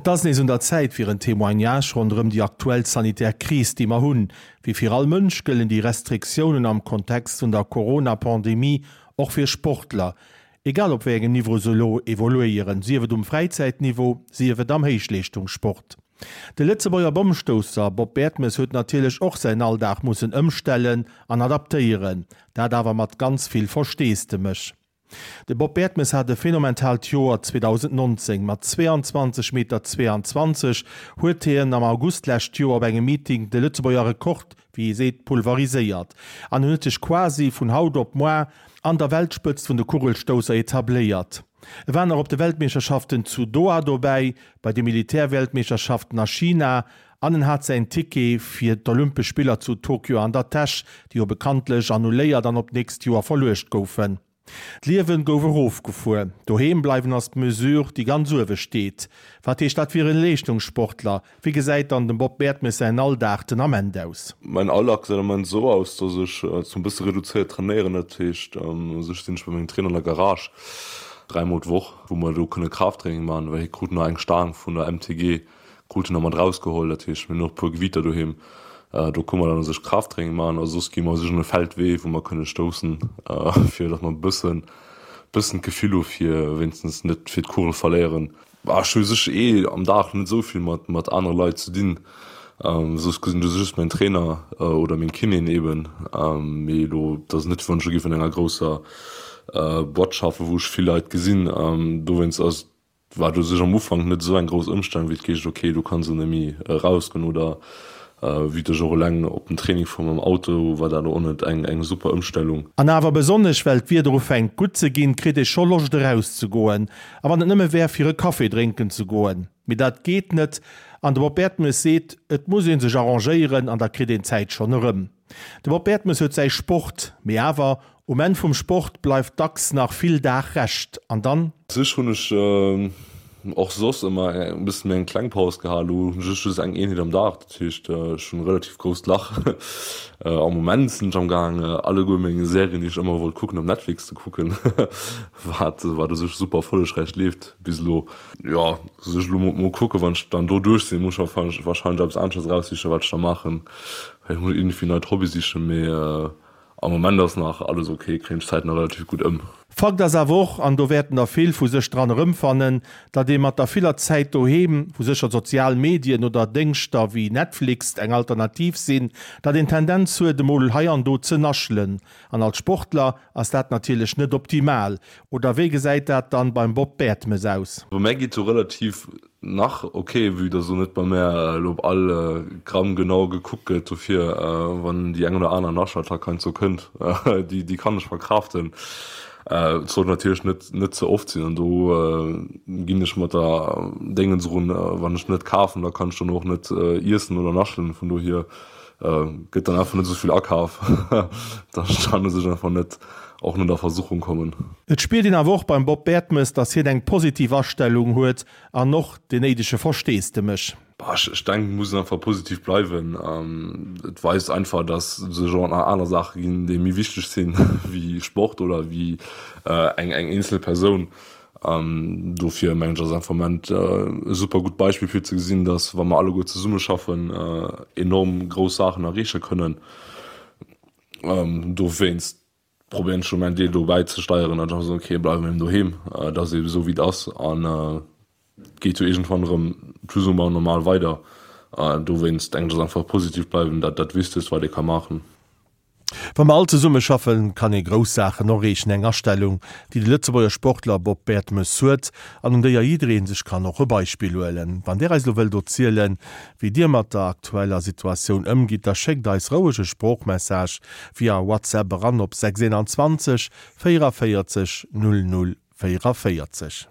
Et ass nees un der Zäit fir en Témoignage ronderëm déi aktuell sanitär Kris, déi mer hunn. Wéi fir all Mënsch gëllen déi Restriktiounen am Kontext vun der Corona-Pandemie och fir Sportler, egal op wéi engem Niveau se elo evoluéieren, sief et um Fräizäitniveau, sief et am Héichleeschtungssport. De Lëtzebuerger Bommstousser Bob Bertemes huet natierlech och säin Alldag mussen ëmstellen an adaptéieren, dat awer mat ganz vill Versteesdemech. De Bob Bertemes hat e phänomentaalt Joer 2019. Mat 22 Meter 22 huet hien am August d'lescht Joer op engem Meeting de Lëtzebuerger Rekord, wéi ee seet, pulveriséiert an en huet sech quasi vun haut op moar an der Weltspëtzt vun de Kugelstousser etabléiert. E war nach op de Weltmeeschterschaften zu Doha dobäi, bei de Militärweltmeeschterschaften a China An en hat säin Ticket fir d'Olympesch Spiller zu Tokio an der Täsch, déi jo bekanntlech annuléiert an op d'nächst Joer verluecht goufen. D'Liewen gouf erofgefuer. Doheem bleiwen ass d'Mesure, déi ganz uewe steet. Wat heescht dat fir e Leeschtungssportler? Wéi gesäit dann dem Bob Bertemes säin Alldag den Ament aus? Mäin Alldag gesäit am Moment esou aus, dass ech zum bësse reduzéiert trainéieren. Dat heescht, u sech sinn ech bei mengem Trainer an der Garage dräimol d'Woch, wou mer do kënne Kraafttraining maachen, well hie krut nach eng Staang vun der MTG Krut en nach mat rausgeholl, dat heescht mir hunn och e puer Gewiiter doheem, do kënne mer dann u sech Krafttraining maachen a soss gi mer u sech un e Feldwee, wou mer kënne stoussen, fir datt mer e bëssen, bëssen d'Gefill hu fir wéinstens net fir d'Kugel verléieren. Ech hu u sech eh am Dag net esou vill mat, mat anere Leit ze dinn, soss gesinn ech just mäin Trainer oder meng Kinéen eeben, mee elo, et ass net wéi wann ech elo géif an enger grousser Boîte schaffen, wou ech vill Leit gesinn, dowéinst ass War u sech am Ufank net esou eng grouss Ëmstellung, wéi et geescht, ok, do kanns de net méi erausgoen oder wéi ech och eleng op den Training fuer mam Auto, war dat och net eng eng super Ëmstellung. An awer besonnesch well d'Wieder ufänkt gutt ze ginn, kritt ee scho Loscht erauszegoen. A wann et nëmme wär fir e Café drénken ze goen. Mee dat geet net an de Bob Bertemes seet, et muss ee sech arrangéieren an da kritt een d'Zäit schonn erëm. De Bob Bertemes huet säi Sport, mee awer, um Enn vum Sport bleift dacks nach vill Dag Rescht. An dann? Sech hunn ech och soss ëmmer e bëssen méi eng kleng Paus gehat. Elo hunn ech just eng Eenheet am Dag, dat heescht ech hunn e relativ grousst Lach. Am Moment sinn ech am gaang alleguer meng Serien déi ech ëmmer wollt kucken op Netflix ze kucken, wat wat u sech super erfollegräich leeft bis elo. Jo, sech elo mol kucken, wann ech dann do duerch sinn, muss ech warscheinlech eppes aneschters eraussichen wat ech da maachen. Ech muss iergendwéi neit Hobby sichen, mee am Moment ass nach alles ok, kréien ech d'Zäit nach relativ gutt ëm. Fakt ass awer och, an do wäerten der vill vu sech dran erëmfannen, datt ee mat der viller Zäit doheem, wou sécher d'sozial Medien oder Déngschter wéi Netflix eng Alternativ sinn, datt een d'Tendenz huet emol hei an do ze naschelen. An als Sportler ass dat natierlech net optimal. Oder wéi gesäit dat dann beim Bob Bertemes aus? Bei mär geet sou relativ Nach ok, vue dass elo net bei mär elo op all Gramm genau gekuckt gëtt, dofir wann déi eng oder aner Naschattack heiansdo kënnt, déi déi kann ech verkraaften. Et sollt natierlech net net ze oft sinn an do ginn ech mat der Déngens erun, wann ech net kafen, da kann ech dann och net iessen oder naschen, vun dohier gëtt dann einfach net esou vill akaf, dass ech dann u sech einfach net och net a Versuchung kommen. Et spiert een awer och beim Bob Bertemes, dass hien eng positiv Astellung huet an och deen néidege Versteesdemech. Bah, ech denken, et muss een einfach positiv bleiwen. Et weist einfach, dass et sech och nach aner Saache ginn, déi méi wichteg sinn wéi Sport oder wéi eng eenzel Persoun. Dofir mengen ech ass einfach am Moment e super gutt Beispill fir ze gesinn, dass wa mer alleguer zesummeschaffen, enorm grouss Saachen erreeche kënnen. Dowéinst probéieren ech elo mäin Deel do bäizesteieren an da soen, okay, bleiwe mer eben doheem, et ass eben esou wéi et ass an et geet jo iergendwann erëm plus ou moins normal weider. Dowéinst denken ech ass einfach positiv bleiwen dat dat Wichtegst wat ee ka maachen. Wa mer all zesumme schaffen, kann ee grouss Saachen erreechen. Eng Astellung, déi de Lëtzebuerger Sportler Bob Bertemes huet an un déier jidderee sech kann och e Beispill huelen. Wann Dir eis elo wëllt erzielen, wéi Dir mat der aktueller Situatioun ëmgitt, da schéckt eis roueg e Sproochmessage via WhatsApp eran op 6 21 44 00 44.